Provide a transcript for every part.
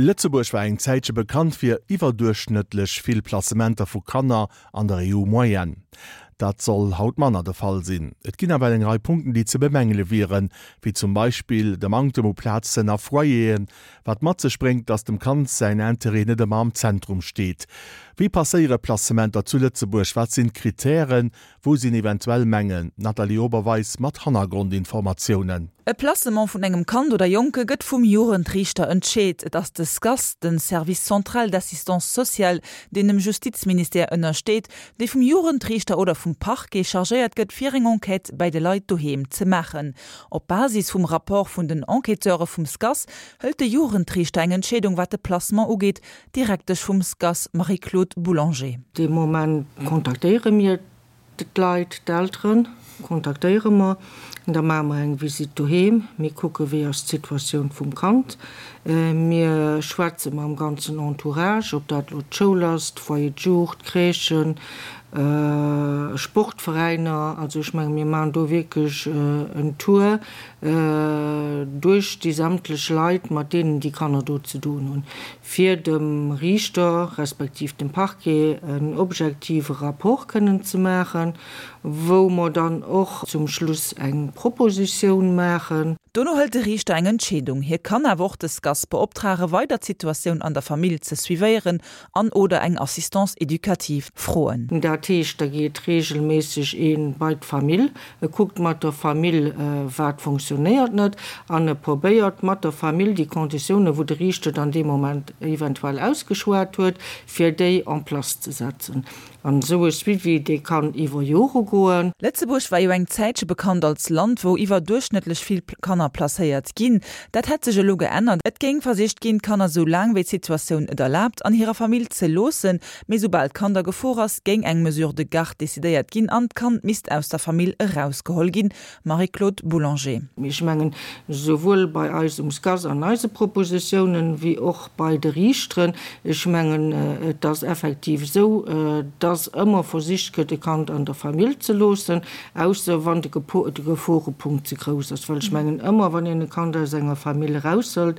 Lëtzebuerg war eng Zäitche bekannt fir iwwerduerchschnëttlech vill Placementer vu Kanner an der EU-Moyenne. Dat soll haut manner de Fall sinn. Et ginn awer eng Rei Punkten, déi ze bemängele wieren, wéi zum Beispill de Manktem u Plazen a Foyeren, wat mat sech bréngt, datt dem Kand säin Interêt net ëmmer am Zentrum steet. Wéi passéiere Placementer zu Lëtzebuerg? Wat sinn d'Kritären? Wou sinn eventuell Mängel? D'Nathalie Oberweis mat Hannergrondinformatiounen. E Placement vun engem Kand oder Jonke gëtt vum Jugendriichter entscheet. Et ass de SCAS, de Service central d'assistance sociale, deen dem Justizministère ënnersteet, dee vum Jugendriichter oder vum Parquet chargéiert gëtt, fir eng Enquête bäi de Leit doheem ze maachen. Op Basis vum Rapport vun den Enquêteure vum SCAS hëlt de Jugendriichter eng Entscheedung, wat de Placement ugeet, Direktesch vum SCAS Marie-Claude Boulanger. Dee Moment kontaktéiere mir d'Leit, d'Eltere kontaktéiere mer, da maache mer eng Visitt doheem, mir kucke wéi ass d'Situatioun vum Kand, mir schwätze mam ganzen Entourage, ob dat elo d'Schoul ass, d'Foyer de jour, d'Crèchen, Sportveräiner, also ech menge mir maachen do wierklech en Tour duerch déi sämtlech Leit, mat deenen déi Kanner do ze doen hunn, fir dem Riichter respektiv dem Parquet en objektive Rapport kënnen ze maachen, wou mer dann och zum Schluss eng Propositioun maachen. Dono hëlt de Riichter eng Entscheedung. Hie kann awer och de SCAS beoptrage weider d'Situatioun an der Famill ze suivéieren an oder eng Assistance éducative froen. Dat heescht, da geet reegelméisseg ee bei d'Famill, E kuckt mat der Famill, wat fonctionnéiert net, an e probéiert mat der Famill déi Konditiounen, wou de Riichter dann dee Moment eventuell ausgeschwat huet, fir déi en place ze setzen. An esou e Suivi, dee kann iwwer Jore goen. Lëtzebuerg war jo eng Zäitche bekannt als Land, wou iwwerduerchschnëttlech vill Kanner placéiert ginn. Dat hätt sech elo geännert. Et géing versicht ginn, d'Kanner esou laang wéi d'Situatioun et erlaabt, an hirer Famill ze loossen. Mee soubal d'Kand a Gefor ass, géing eng Mesure de garde decidéiert ginn an d'Kand misst aus der Famill erausgeholl ginn. Marie-Claude Boulanger. Ech mengen, souwuel bei eis um SCAS an eise Propositiounen, wéi och bei de Riichteren, ech mengen, et ass effektiv esou, dass ëmmer versicht gëtt, e Kand an der Famill ze loossen, ausser wann de Geforepunkt ze grouss ass. Well ech mengen, ëmmer wann een e Kand aus enger Famill eraushëlt,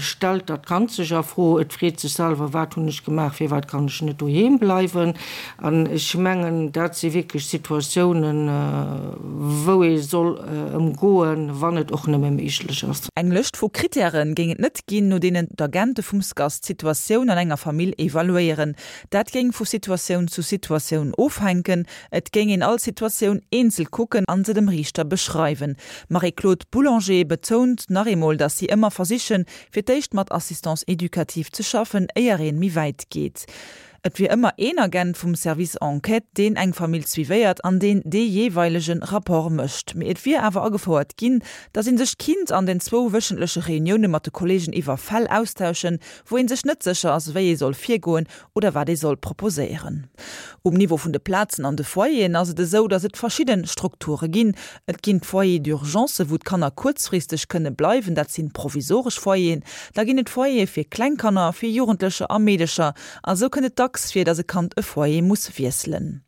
stellt dat Kand sech a Fro, et freet sech selwer, Wat hunn ech gemaach, firwat kann ech net doheem bleiwen? An ech mengen, dat si wierklech Situatiounen, wou ee soll ëmgoen, wann et och nëmme méiglech ass. Eng Lëscht vu Krittäre géing et net ginn, no deenen d'Agente vum SCAS d'Situatioun an enger Famill evaluéieren. Dat géing vu Situatioun zu Situatioun ofhänken. Et géing een all Situatioun eenzel kucken an se dem Riichter beschreiwen. D'Marie-Claude Boulanger betount nach eemol, datt si ëmmer versichen, fir d'éischt mat Assistance éducative ze schaffen, éier een méi wäit geet. Et wier ëmmer een Agent vum Service Enquête, deen eng Famill suivéiert an deen dee jeeweilege Rapport mécht. Mee et wier awer agefouert ginn, datt ee sech kinnt an den zwou wéchentleche Reunioune mat de Kolleegen iwwer Fäll austauschen, wou ee sech net sécher ass, wéi ee soll virgoen oder wat ee soll proposéieren. Um Niveau vun de Plazen an de Foyeren ass et esou, datt et verschidde Strukture ginn. Et ginn d'Foyers d'urgence, wou d'Kanner kuerzfristeg kënne bleiwen, dat sinn provisoresch Foyeren. Da ginn et Foyere fir kleng Kanner, fir Jugendlecher a Meedecher. A sou kënnt et dacks vir, datt e Kand e Foyer muss wiesselen.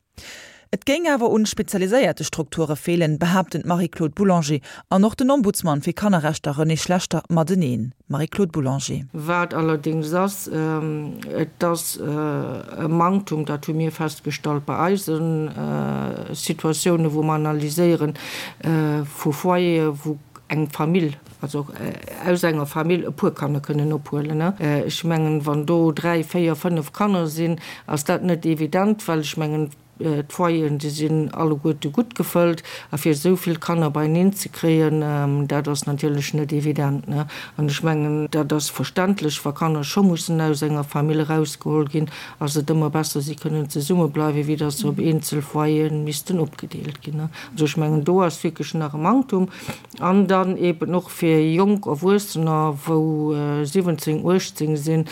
Et géing awer un spezialiséierte Strukture feelen, behaapten d'Marie-Claude Boulanger an och den Ombudsman fir Kannerrechter René Schlechter mateneen. Marie-Claude Boulanger. Wat allerdéngs ass, et ass e Manktum, dat hu mir festgestallt bei eise Situatiounen, wou mer analyséieren, vu Foyere wou eng Famill, also aus enger Famill e puer Kanner kënnen ophuelen. Ech mengen, wann do 3, 4, 5 Kanner sinn, ass dat net evident, well ech mengen, d'Foyeren, déi sinn alleguerte gutt gefëllt. A fir esou vill Kanner beieneen ze kréien, dat ass natierlech net evident. An ech mengen, dat ass verständlech, wa Kanner scho mussen aus enger Famill erausgeholl ginn, ass et ëmmer besser, si kënnen zesummebleiwen, wéi datt se op eenzel Foyere missten opgedeelt ginn. Also ech mengen, do ass wierklech nach e Manktum. An dann eben och fir jonk Erwuessener, wou 17, 18 sinn,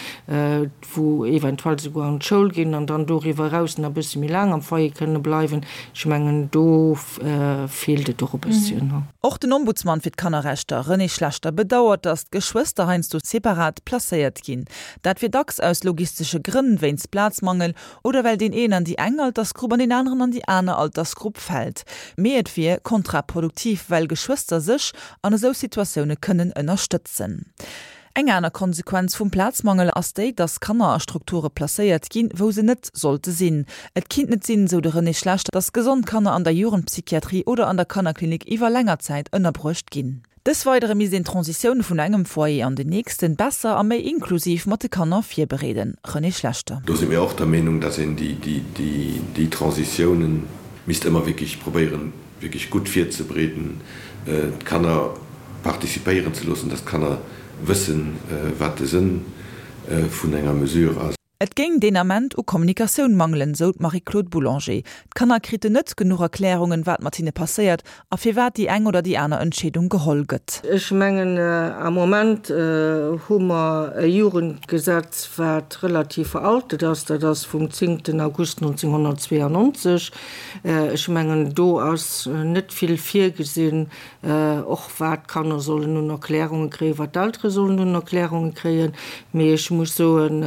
wou eventuell souguer an d'Schoul ginn an dann doriwwer eraus nach e bësse méi laang am Foyer kënne bleiwen. Ech mengen, do feelt et och e bësschen. Och den Ombudsman fir d'Kannerrechter, René Schlechter, bedauert, datt d'Geschwëster heiansdo separat placéiert ginn. Dat wier dacks aus logistesche Grënn, wéinst Plazmangel Oder well deen een an déi eng Altersgrupp an deen aneren an déi aner Altersgrupp fält. Mee et wier kontraproduktiv, well Geschwëster sech an esou Situatioune kënnen ënnerstëtzen. Eng aner Konsequenz vum Plazmangel ass déi, dass Kanner a Strukture placéiert ginn, wou se net sollte sinn. Et kinnt net sinn, sou de René Schlechter, dass gesond Kanner an der Jugendpsychiatrie oder an der Kannerklinik iwwer länger Zäit ënnerbruecht ginn. Dës Weidere misst een d'Transitioun vun engem Foyer an den nächsten besser a méi inklusiv mat de Kanner virbereeden. René Schlechter. Do si mir och der Meenung, dass een déi Transitiounen misst ëmmer wierklech probéieren, wierklech gutt virzebereeden, d'Kanner participéieren ze loossen, dass d'Kanner wëssen, wat de Sënn vun enger Mesure ass. Et géing deen Ament u Kommunikatioun mangelen, sou d'Marie-Claude Boulanger. D'Kanner kriten net genuch Erklärungen, wat mat hinne passéiert a firwat déi eng oder déi aner Entscheedung geholl gëtt. Ech mengen, am Moment hu mer e Jugendgesetz, wat relativ veraltet ass. Dat ass vum zéngten August 1992. Ech mengen, do ass net vill virgesinn, och wat d'Kanner sollen un Erklärunge kréien, wat d'Eltere sollen un Erklärunge kréien. Mee ech muss soen,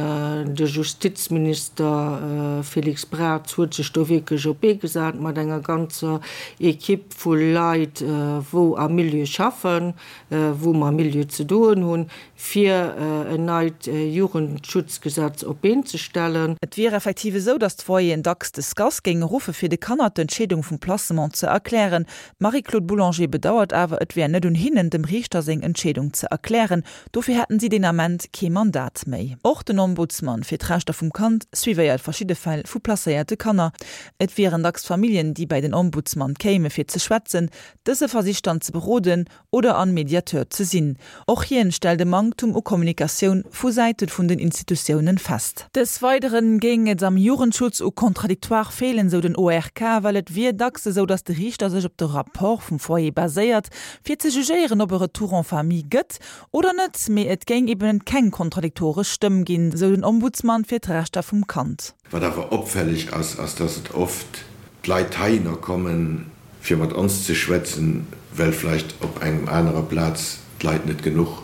de Justizminister Félix Braz huet sech do wierklech op d'Bee gesat mat enger ganzer Equipe vu Leit, wou am Milieu schaffen, wou mam Milieu ze doen hunn, fir en neit Jugendschutzgesetz op d'Been ze stellen. Et wier effektiv esou, datt d'Foyeren dacks de SCAS géinge ruffe fir de Kanner d'Entscheedung vum Placement ze erklären. D'Marie-Claude Boulanger bedauert awer, et wär net un hinnen, dem Riichter seng Entscheedung ze erklären. Dofir hätten si deen Ament kee Mandat méi. Och den Ombudsman fir d'Rechter vum Kand suivéiert verschidde Fäll vu placéierte Kanner. Et wieren dacks Familljen, déi bäi den Ombudsman kéime fir ze schwätzen. Dëse versicht dann ze beroden oder an Mediateur ze sinn. Och hien stellt e Manktum u Kommunikatioun vu Säite vun den Institutiounen fest. Des Weideren géing et am Jugendschutz u Contradictoire feelen, sou den ORK, well et wier dacks esou, datt de Riichter sech op de Rapport vum Foyer baséiert, fir ze jugéieren, ob e Retour en famille gëtt oder net, mee et géing eben keng kontradiktoresch Stëmm ginn, sou den Ombudsman fir d'Rechter vum Kand. Wat awer opfälleg ass, ass dass et oft d'Leit heihinner kommen, fir mat ons ze schwätzen, well vläicht op engem anerer Plaz d'Leit net genuch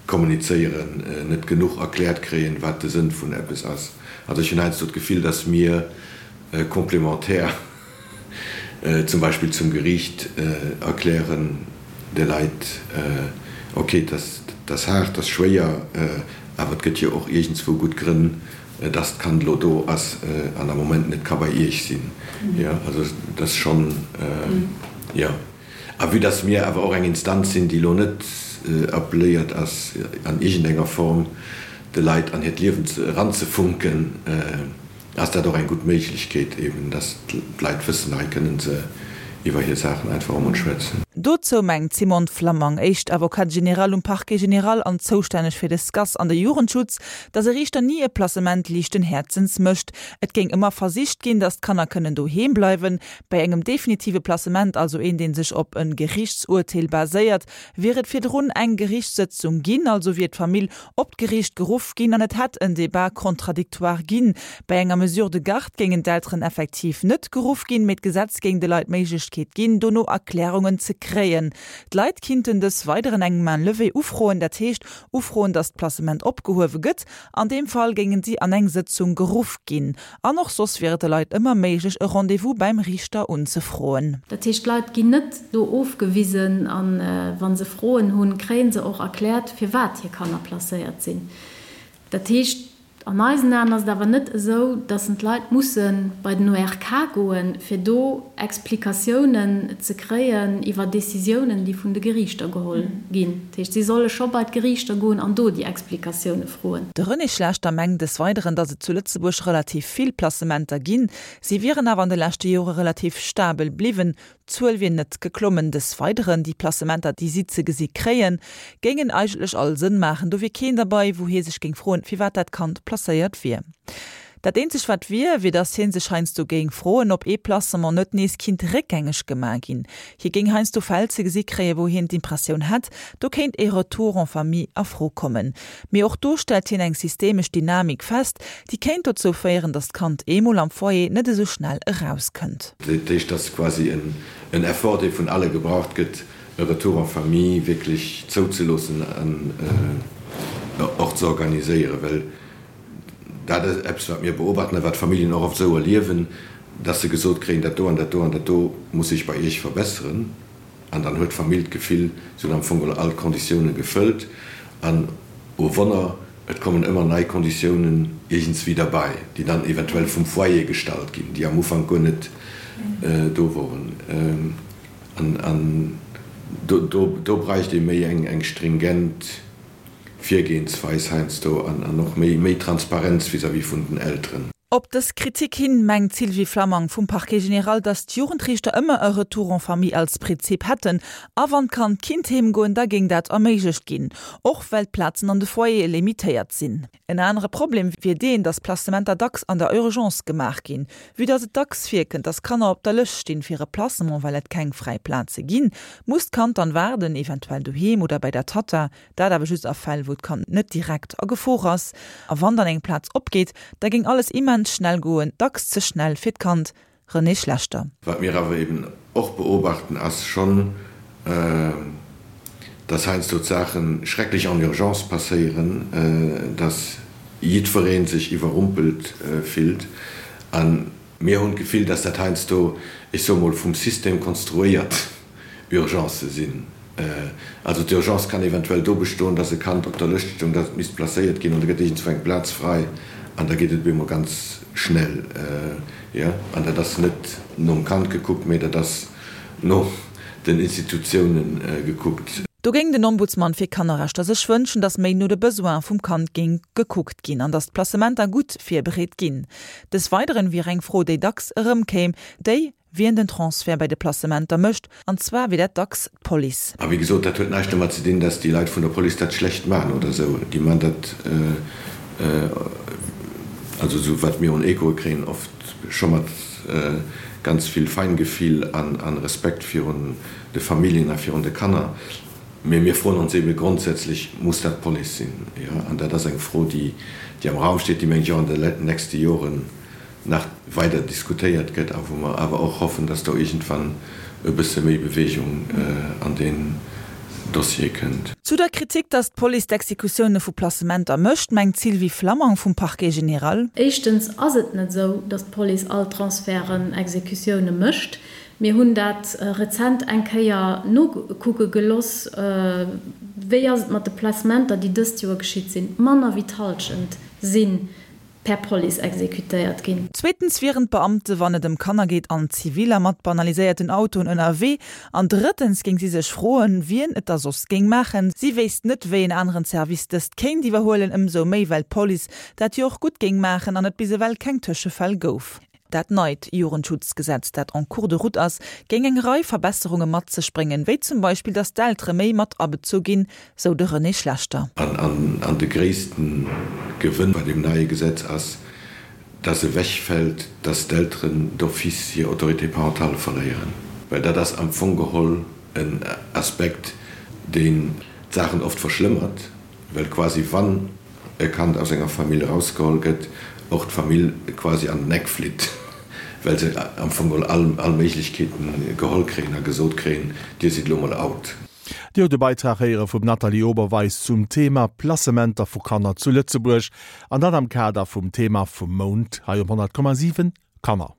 kommunizéieren, net genuch erkläert kréien, wat de Sënn vun eppes ass. Also ech hunn heiansdo d'Gefill, dass mir complémentaire zum Beispill zum Geriicht erklären de Leit, ok, et ass haart, et ass schwéier, awer et gëtt jo och iergendswou gutt Grënn, dass d'Kand elo do ass an am Moment net ka bei Iech sinn. Jo, also dat ass schonn, jo. A vue dass mir awer och eng Instanz sinn, déi elo net appelléiert ass, an iergendenger Form de Leit an hiert Liewen eranzefunken, ass dat och eng gutt Méiglechkeet eben, dass d'Leit wëssen, hei kënnen se iwwer hir Saachen einfach emol schwätzen. Dozou mengt d'Simone Flammang, éischt Avocate générale um Parquet général an zoustänneg fir de SCAS an de Jugendschutz, dass e Riichter ni e Placement liichten Häerzens mécht. Et géing ëmmer versicht ginn, dass d'Kanner kënnen doheem bleiwen. Bei engem definitive Placement, also een dee sech op e Geriichtsurteel baséiert, wier et virdrun eng Geriichtssëtzung ginn, also wier d'Famill op d'Geriicht geruff ginn an et hätt en Débat contradictoire ginn. Bei enger Mesure de garde géingen d'Elteren effektiv net geruff ginn, mee d'Gesetz géing de Leit d'Méiglechkeet ginn, dono Erklärungen ze kréien. D'Leit kinnten dës Weideren eng Main levée ufroen, dat heescht ufroen, datt d'Placement opgehuewe gëtt. An deem Fall géingen si an eng Sëtzung geruff ginn. An och soss wier et de Leit ëmmer méiglech, e Rendez-vous bäim Riichter unzefroen. Dat heescht, d'Leit ginn net do ofgewisen a wa se Froen hunn, kréie se och erkläert, firwat hir Kanner placéiert sinn. Dat heescht, an eisen Aen ass et awer net esou, datt d'Leit musse bei den ORK goen, fir do Explikatiounen ze kréien iwwer Décisiounen, déi vun de Geriichter geholl ginn. Dat heescht, si solle scho bei d'Geriichter goen an do déi Explikatioune froen. De René Schlechter mengt des Weideren, datt et zu Lëtzebuerg relativ vill Placementer ginn. Si wieren awer an de leschte Jore relativ stabel bliwwen. D'Zuel wier net geklommen. Des Weideren, déi Placementer, déi si ze gesi kréien, géingen eigentlech all Sënn maachen. Do wier keen derbei, wou hie sech géing froen, firwat dat Kand placéiert wier. Dat eenzegt wat wier, wier datt hie sech heiansdo géing froen, ob ee Placement net nees kinnt réckgängeg gemaach ginn. Hie géing heiansdo Fäll ze gesi kréien, wou hien d'Impressioun hätt, do kéint ee Retour en famille a Fro kommen. Mee och do stellt hien eng systemesch Dynamik fest, déi kéint dozou féieren, datt d'Kand eemol am Foyer net esou schnell erauskënnt. Dat heescht, dass quasi en Effort, dee vun alle gebraucht gëtt, e Retour en famille wierklech zouzeloossen an och ze organiséieren, well Dat ass eppes, wat mir beobachten a wat d'Familljen och oft esou erliewen, dass se gesot kréien, dat do an dat do an dat do muss sech bei Iech verbesseren. An dann huet d'Famill d'Gefill, se hunn am Fong geholl all d'Konditiounen gefëllt. An. Oh Wonner, et kommen ëmmer nei Konditiounen iergendswéi derbäi, déi dann eventuell vum Foyer gestallt ginn, déi am Ufank guer net do woren. An do bräicht ee méi eng stringent Virgehensweis heiansdo an och méi Transparenz vis-à-vis vun den Elteren. Op dës Kritik hin mengt d'Sylvie Flammang vum Parquet général, datt d'Jugendriichter ëmmer e Retour en famille als Prinzip hätten a wann d'Kand kinnt heem goen, da géing dat erméiglecht ginn, och well d'Plazen an de Foyere limitéiert sinn. En anere Problem wier deen, datt Placementer dacks an der Urgence gemaach ginn. Vue datt et dacks virkënnt, datt Kanner op der Lëscht stinn fir e Placement, well et keng fräi Plaze ginn, muss d'Kand dann waarden, eventuell doheem oder bäi der Tatta. Dat awer just a Fäll, wou d'Kand net direkt a Gefor ass. A wann dann eng Plaz opgeet, da géing alles immens schnell goen, dacks ze schnell fir d'Kand. René Schlechter. Wat mir awer eben och beobachten, ass schonn, dass heiansdo d'Saache schrecklech en urgence passéieren, dass jiddweree sech iwwerrumpelt fillt. A mir hunn d'Gefill, dass dat heiansdo, ech soe mol, vum System konstruéiert Urgencë sinn. Also d'Urgence kann eventuell do bestoen, dass e Kand op der Lëscht stoung, dass et misst placéiert ginn an da gëtt iergendzwou eng Plaz frei an da geet et op eemol ganz schnell. Jo, an dat ass net nom Kand gekuckt, mee dat ass no den Institutiounen gekuckt. Do géing den Ombudsman fir Kannerrechter sech wënschen, dass méi no de Besoine vum Kand géing gekuckt ginn an dass d'Placementer gutt virbereet ginn. Des Weideren wier eng Fro, déi dacks erëmkéim, déi, wien den Transfert bei de Placementer mécht, an zwar wier dat dacks d'Police. A wéi gesot, dat huet näischt domat ze dinn, dass déi Leit vun der Police dat schlecht maachen oder esou. Déi maachen dat, also esou wat mir un Echoe kréien, oft scho mat ganz vill Feingefill a Respekt virun de Familljen a virun de Kanner. Mee mir froen ons eebe grondsätzlech, Muss dat d'Police sinn? Jo, an dat ass eng Fro, déi am Raum steet, déi, mengen ech, och an de nächste Joren nach weider diskutéiert gëtt a wou mer awer och hoffen, dass do iergendwann e bësse méi Bewegung an deen Dossier kënnt. Zu der Kritik, dass d'Police d'Exekutioune vu Placementer mécht, mengt d'Sylvie Flammang vum Parquet général. Éischtens ass et net esou, dass d'Police all Transferten, Exekutioune mécht. Mir hunn dat rezent eng Kéier nokucke geloss, wéi ass et mat de Placementer, déi dëst Joer geschitt sinn. Manner wéi d'Hallschent sinn per Police exekutéiert ginn. Zweetens wieren d'Beamte, wann et ëm Kanner geet, an Ziviller mat banaliséierten Autoen ënnerwee. An drëttens géing si sech froen, wien et da soss géing maachen. Si wéisst net, wéi en aneren Service dëst kéint iwwerhuelen, ëmsou méi well d'Police dat jo och gutt géing maachen an et bis ewell keng Tëschefäll gouf. Dat neit Jugendschutzgesetz, dat en cours de route ass, géing eng Rei Verbesserunge mat sech bréngen, wéi zum Beispill, datt d'Eltere méi mat abezu ginn, sou de René Schlechter. An de gréisste Gewënn bei deem neie Gesetz ass, dass ewechfält, dass d'Elteren d'office hir Autorité parentale verléieren, well dat ass am Fong geholl en Aspekt, deen d'Saachen oft verschlëmmert. Well quasi wann e Kand aus enger Famill erausgeholl gëtt, och d'Famill quasi an den Eck flitt, well se am Fong geholl all all Méiglechkeeten geholl kréien a gesot kréien, Dir sidd elo mol out. Dir hutt e Beitrag héiere vum Nathalie Oberweis zum Thema Placementer vu Kanner zu Lëtzebuerg, an dat am Kader vum Thema vum Mount hei um 100,7, Kanner.